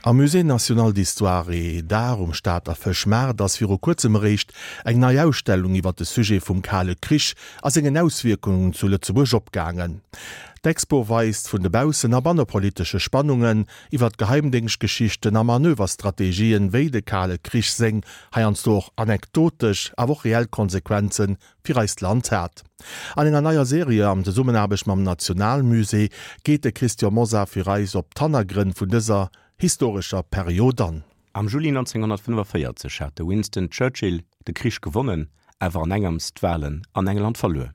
Am Musée national d'histoire et d'art um Stater Fëschmaart ass viru kuerzem eréischt eng nei Ausstellung iwwer de Sujet vum Kale Krich a sengen Auswierkungen zu Lëtzebuerg opgaangen. D'Expo weist vun de baussen a bannepolitesche Spannungen iwwer d'Geheimdéngschtgeschichten a Manöverstrategien, wéi de Kale Krich seng, heiansdo och anekdotesch, awer och reell Konsequenze fir eist Land hat. An enger neier Serie an Zesummenaarbecht mam Nationalmusée geet de Christian Mosar fir eis op d'Hannergrënn vun dëser historescher Period an. Am Juli 1945 hat de Winston Churchill de Krich gewonnen, awer an engems d'Walen an England verluer.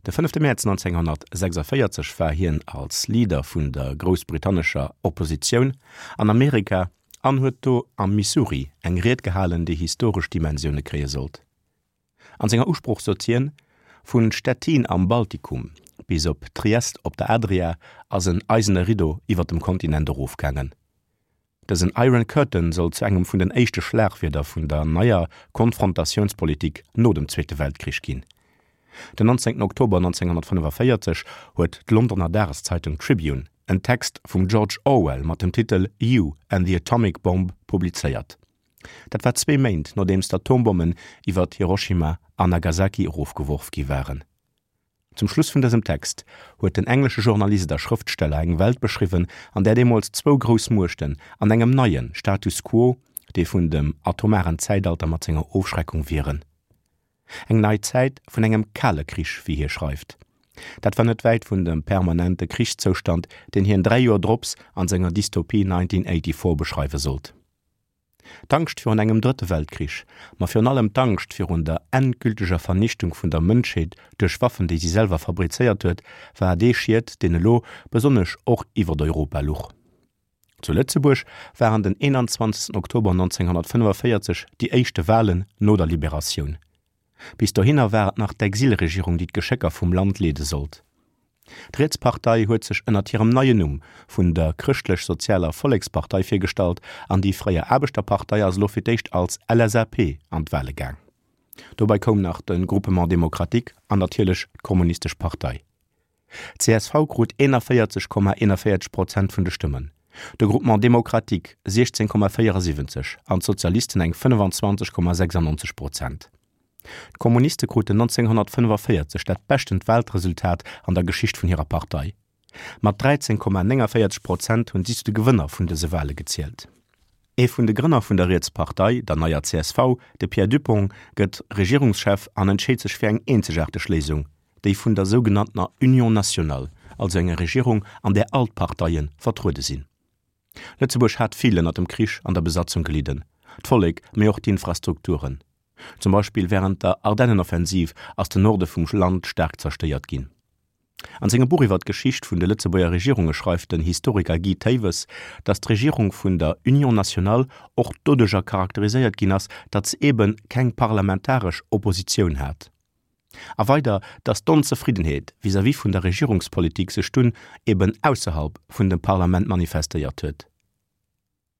De fënnefte Mäerz 1946 war hien als Leader vun der groussbritannescher Oppositioun an Amerika an huet do am Missouri eng Ried gehalen, déi historesch Dimensioune kréie sollt. An senger Usprooch sot hien, Vun Stettin am Baltikum bis op Triest op der Adria ass en eisene Riddo iwwer dem Kontinent erofgaangen. Dësen Iron Curtain soll zu engem vun den éischte Schlagwierder vun der neier Konfrontatiounspolitik no dem Zweete Weltkrich ginn. Den 19 Oktober 1945 huet d'Londoner Dageszeitung Tribune en Text vum George Orwell mat dem Titel You and the Atomic Bomb publizéiert. Dat war zwee Méint nodeems d'Atombommen iwwert Hiroshima an Nagasaki erofgeworf gi waren. Zum Schluss vun dësem Text huet den englesche Journalist a Schrëftsteller eng Welt beschriwwen, an där deemools zwou grouss Muechten an engem neie Status quo, dee vun dem atomaren Zäitalter mat senger Ofschreckung, wieren. Eng nei Zäit vun engem kale Krich, wéi hie schreift. Dat war net wäit vun dem permanente Krichszoustand, deen hien 3 Joer drops an senger Dystopie 1984 beschreiwe sollt. D'Angscht virun engem Drëtte Weltkrich, ma virun allem d'Angscht virun der endgülteger Vernichtung vun der Mënschheet duerch Waffen, déi si selwer fabrizéiert huet, war dee Schied, deen elo besonnesch och iwwert Europa luch. Zu Lëtzebuerg waren den 21 Oktober 1945 déi éischte Walen no der Liberatioun. Bis dohinner war et nach d'Exilregierung, déi d'Geschécker vum Land leede sollt. D'Rietspartei huet sech ënnert hirem neien Numm vun der Chrëschtlech-Sozialer Vollekspartei virgestallt an déi fréier Aarbechterpartei ass elo fir d'éischt als LSAP an d'Wale gaang. Dobei koum nach de Groupement démocratique an natierlech d'Kommunistesch Partei. D'CSV krut 41,41 Prozent vun de Stëmmen, de Groupement démocratique 16,74 an d'Sozialisten eng 25,96 Prozent. D'Kommuniste kruten 1945 dat beschtent Waltresultat an der Geschicht vun hirer Partei. Mat 13,49 Prozent hunn si zu de Gewënner vun dëse Wale gezielt. Ee vun de Grënner vun der Rietspartei, der neier csv, de Pierre Dupong, gëtt Regierungschef an entscheet sech fir eng eenzegaarteg Léisung, déi vun der sougenanntener Union nationale, also enger Regierung, an där all d'Parteie vertruede sinn. Lëtzebuerg hat vill ënner dem Krich an der Besatzung gelidden, d'Vollek, mee och d'Infrastrukturen. Zum Beispill wärend der Ardennenoffensiv ass den Norde vum Land staark zerstéiert ginn. An sengem Buch iwwer d'Geschicht vun de Lëtzebuerger Regierunge schreift den Historiker Guy Thewes, datt d'Regierung vun der Union nationale och doduercher charakteriséiert ginn ass, datt se eebe keng parlamentaresch Oppositioun hat. A weider, datt d'Onzefriddenheet vis-à-vis vun der Regierungspolitik sech dunn eeben ausserhalb vun dem Parlament manifestéiert huet.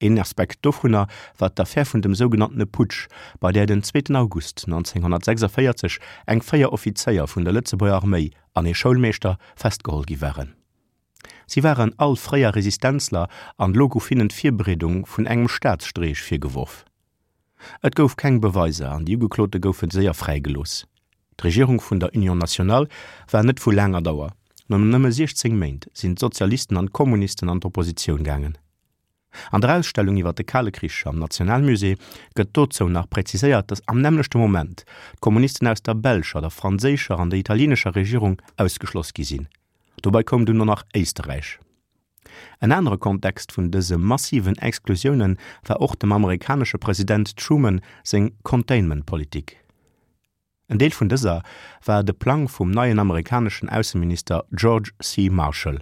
Een Aspekt dovunner war d'Affär vun dem sougenanntene Putsch, bei där den zweeten August 1946 eng 4 Offizéier vun der Lëtzebuerger Arméi an ee Schoulmeeschter festgeholl gi waren. Si waren all fréier Resistenzler an elo gouf hinnen d'Virbereedung vun engem Staatsstreech virgeworf. Et gouf keng Beweiser an déi Ugeklote goufe séier fräigelooss. D'Regierung vun der Union nationale war net vu laanger Dauer, no nëmme 16 Méint sinn d'Sozialisten an d'Kommunisten an d'Oppositioun gaangen. An der Ausstellung iwwer de Kale Krich am Nationalmusée gëtt dozou nach präziséiert, datt am nämmlechte Moment d'Kommunisten aus der belscher, der franséischer an der italienescher Regierung ausgeschloss gi sinn. Dobei koum dunn och nach Éisterräich. En anere Kontext vun dëse massiven Exklusioune war och dem amerikanesche President Truman seng Containment-Politik. En Deel vun dëser war de Plang vum neien amerikaneschen Ausseminister George C. Marshall.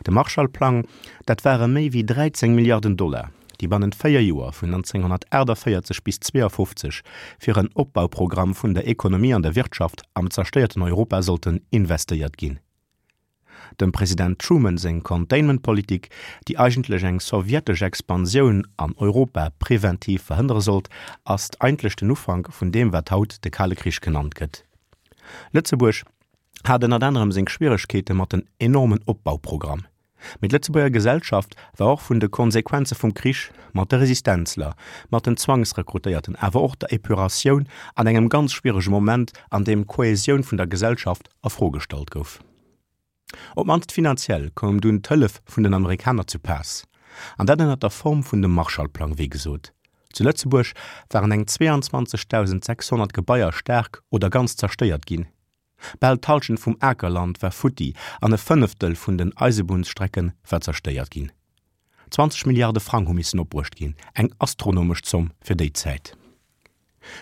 De Marshall-Plang, dat ware méi wéi 13 Milliarden Dollar, déi bannent 4 Joer, vun 1948 bis 52, fir en Opbauprogramm vun der Ekonomie an der Wirtschaft am zerstéierten Europa sollten investéiert ginn. Dem President Truman seng Containment-Politik, déi eigentlech eng sowjetesch Expansioun an Europa preventiv verhënnere sollt, ass eigentlech den Ufank vun deem wat haut de Kale Krich genannt gëtt. Lëtzebuerg hat ënnert anerem seng Schwieregkeete mat den enormen Opbauprogramm. Mee d'Lëtzebuerger Gesellschaft war och vun de Konsequenze vum Krich, mat de Resistenzler, mat den Zwangsrekrutéierten, awer och der Epuratioun an engem ganz schwierege Moment, an deem d'Kohäsioun vun der Gesellschaft a Fro gestallt gouf. Op d'mannst finanziell koum dunn d'Hëllef vun den Amerikaner zu Paass, an dat ënner der Form vun dem Marshallplang, wéi gesot. Zu Lëtzebuerg waren eng 22.600 Gebaier staark oder ganz zerstéiert ginn. Bal d'Hallschent vum Akerland war futti an e Fënneftel vun den Eisebunnsstrecke war zerstéiert ginn. 20 Milliarde Frang hu missen opbruecht ginn, eng astronomesch Zomm fir déi Zäit.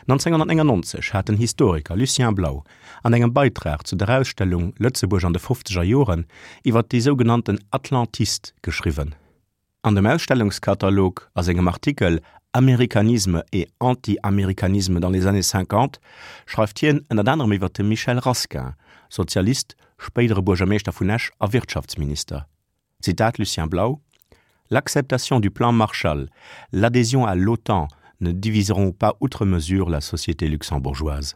1999 hat den Historiker Lucien Blau an engem Beitrag zu der Ausstellung Lëtzebuerg an de fofzeger Joren iwwer déi sougenannten Atlantistes geschriwwen. An dem Ausstellungskatalog a sengem Artikel Américanisme et anti-américanisme dans les années cinquante schreift hien ënnert anerem iwwer de Michel Rasquin, Sozialist, spéidere Buergermeeschter vun Esch a Wirtschaftsminister. Zitat Lucien Blau, L'acceptation du plan Marshall, l'adhésion à l'OTAN ne diviseront pas outre mesure la société luxembourgeoise.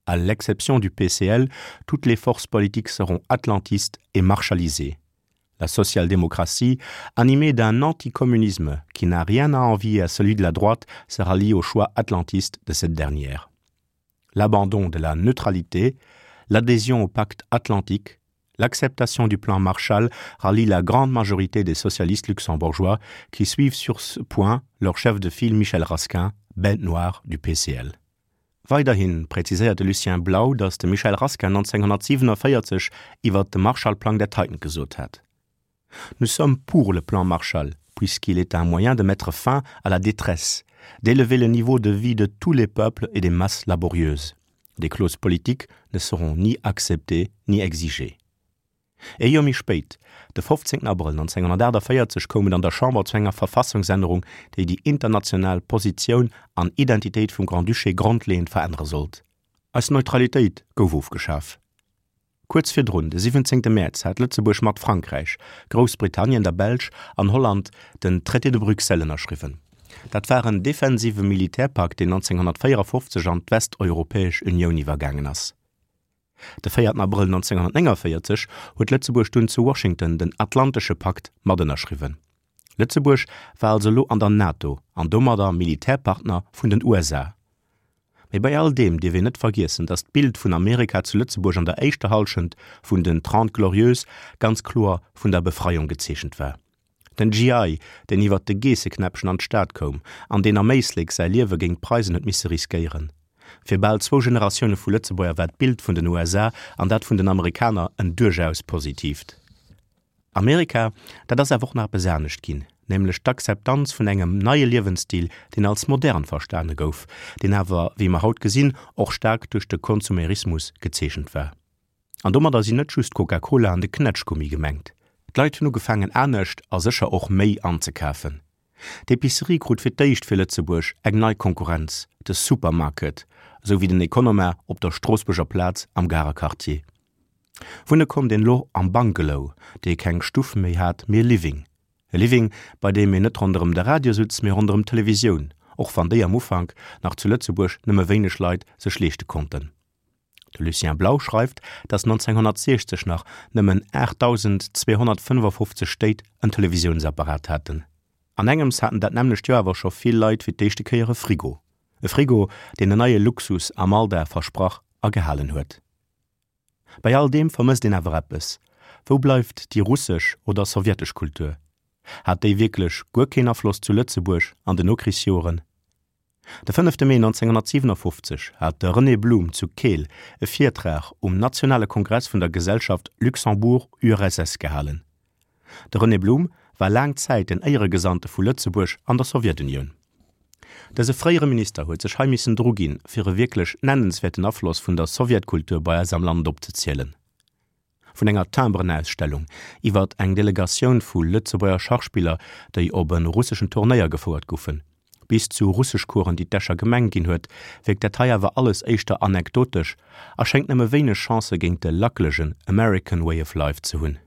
À l'exception du PCL, toutes les forces politiques seront atlantistes et marshalisées. La social-démocratie, animée d'un anticommunisme qui n'a rien à envier à celui de la droite, sera liée au choix atlantiste de cette dernière. L'abandon de la neutralité, l'adhésion au pacte atlantique, l'acceptation du plan Marshall rallie la grande majorité des socialistes luxembourgeois qui suivent sur ce point leur chef de file Michel Rasquin, bête noire du PCL. Weiderhi präziséiert de Lucien Blau, datt de Michel Rasquin 1947 iwwer de Marshallplang dat heiten gesot hat: Nous sommes pour le plan Marshall, puisqu'il est un moyen de mettre fin à la détresse, d'élever le niveau de vie de tous les peuples et des masses laborieuses. Des clauses politiques ne seront ni acceptées ni exigées. Ee Joer méi spéit, de 15 Abrëll 1948, koum et an der Chamber zu enger Verfassungsännerung, déi déi international Positioun an Identitéit vum Grand-Duché grondleeënd verännere sollt. Eis Neutralitéit gouf ofgeschaf. Kuerz virdrun, de 17 Mäerz, hat Lëtzebuerg mat Frankräich, Groussbritannien, der Belsch an Holland den Traité de Bruxelles ënnerschriwwen. Dat war en defensive Militärpakt, deen 1954 an d'Westeuropäesch Unioun iwwergaangen ass. De 4 Abrëll 1949 huet Lëtzebuerg dunn zu Washington den Atlantesche Pakt matënnerschriwwen. Lëtzebuerg war also elo an der NATO an domadder Militärpartner vun den USA. Mee bei all deem dierf een net vergiessen, datt d'Bild vun Amerika zu Lëtzebuerg an der éischter Hallschent vun den Trente Glorieuses ganz kloer vun der Befreiung gezeechent war. Den GI, deen iwwert de Geesseknäppchen an d'Stad koum an deen am Éislek säi Liewe géint d'Preisen huet misse riskéieren. Fir bal zwou Generatioune vu Lëtzebuerger war d'Bild vun den USA an dat vun den Amerikaner en duerchaus positiivt. Amerika, dat ass awer och nach eppes anescht ginn, nämlech d'Akzeptanz vun engem neie Liewensstil, deen als modern verstane gouf, deen awer, wéi mer haut gesinn, och staark duerch de Konsumerismus gezeechent war. An domadder sinn net just d'Coca-Cola an de Knätschgummi gemengt. D'Leit hunn ugefaangen anescht a sécher och méi anzekafen. D'Epicerie krut fir d'éischt fir Lëtzebuerg eng nei Konkurrenz, de Supermarket, esou wéi den Economa op der Stroossbuerger Plaz am Garer Quartier. Wunne konnt een elo am Bungalow, dee keng Stuff méi hat, mee e Living. E Living, bei deem een net ronderëm de Radio sutz, mee ronderëm d'Televisioun, och wann déi am Ufank nach zu Lëtzebuerg nëmme wéineg Leit sech leeschte konnten. De Lucien Blau schreift, datt 1960 nach nëmmen 8.255 Stéit en Televisiounsapparat haten. An engems haten dat nämmlecht Joer awer scho vill Leit fir d'éischte Kéier e Frigo. E Frigo, deen en neie Luxus am Alldag versprach a gehalen huet. Bei all deem vermësst een awer eppes, Wou bleift déi russesch oder sowjetesch Kultur? Hat déi wierklech guer keen Afloss zu Lëtzebuerg an den Nokrichsjoren? De fënnefte Mee 1957 hat de René Blum zu Keel e Virtrag um nationale Kongress vun der Gesellschaft Luxembourg-URSS gehalen. De René Blum war laang Zäit den Éieregesandte vu Lëtzebuerg an der Sowjetunioun. Dëse fréiere Minister huet sech hei missen druginn, fir e wierklech nennenswäerten Afloss vun der Sowjetkultur bei eis am Land opzezielen. Vun enger Timbrenausstellung iwwert eng Delegatioun vu Lëtzebuerger Schachspiller, déi op e russeschen Turnéier gefouert goufen, bis zu Russeschcoursen, déi d'Escher Gemeng ginn huet, wierkt dat hei awer alles éischter anekdotesch a schéngt nëmme wéineg Chancë géint de lackelegen American Way of Life ze hunn.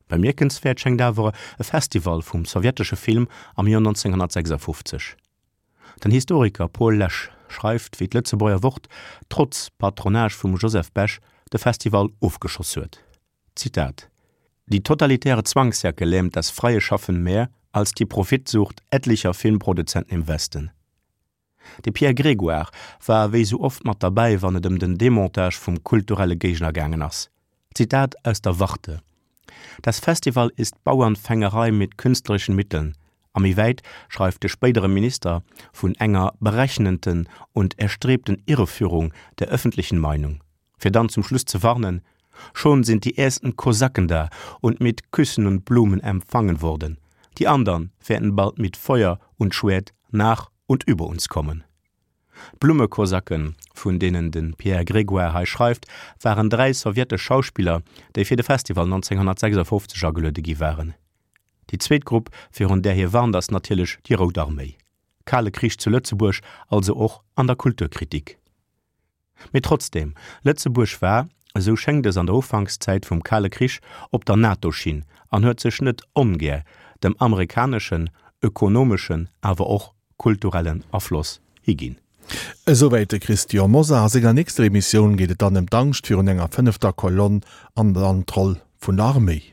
Bemierkenswäert schéngt awer e Festival vum sowjetesche Film am Joer 1956. Den Historiker Paul Lesch schreift, wéi d'Lëtzebuerger Wort trotz Patronage vum Joseph Bech de Festival ofgeschoss huet. Zitat. Die totalitäre Zwangsjacke lähmt das freie Schaffen mehr als die Profitsucht etlicher Filmproduzenten im Westen. De Pierre Grégoire war wéi sou oft mat derbäi, wann et ëm den Demontage vum kulturelle Géigner gaangen ass. Zitat aus der Warte, Das Festival ist Bauernfängerei mit künstlerischen Mitteln. A méi wäit schreift de spéidere Minister vun enger berechnenden und erstrebten Irreführung der öffentlichen Meinung. Fir dann zum Schluss ze warnen, Schon sind die ersten Kosaken da und mit Küssen und Blumen empfangen worden, die andern werden bald mit Feuer und Schwert nach und über uns kommen. D'Blummekosaken, vun deenen de Pierre Grégoire hei schreift, waren 3 sowjetesch Schauspiller, déi fir de Festival 1956 ageluede gi waren. Déi zweet Grupp, virun där hie warnt, ass natierlech déi Rout Arméi. Kale Krich zu Lëtzebuerg, also och an der Kulturkritik. Mee trotzdeem, Lëtzebuerg war, esou schéngt es an der Ufankszäit vum Kale Krich, op der NATO-Schinn an huet sech net ongär dem amerikaneschen ökonomeschen, awer och kulturellen Afloss higinn. Esouwäit de Christian Mosar. A senger nächster Emissioun geet et dann ëm d'Angscht virun enger fënnefter Kolonn an dann d'Roll vun der Arméi.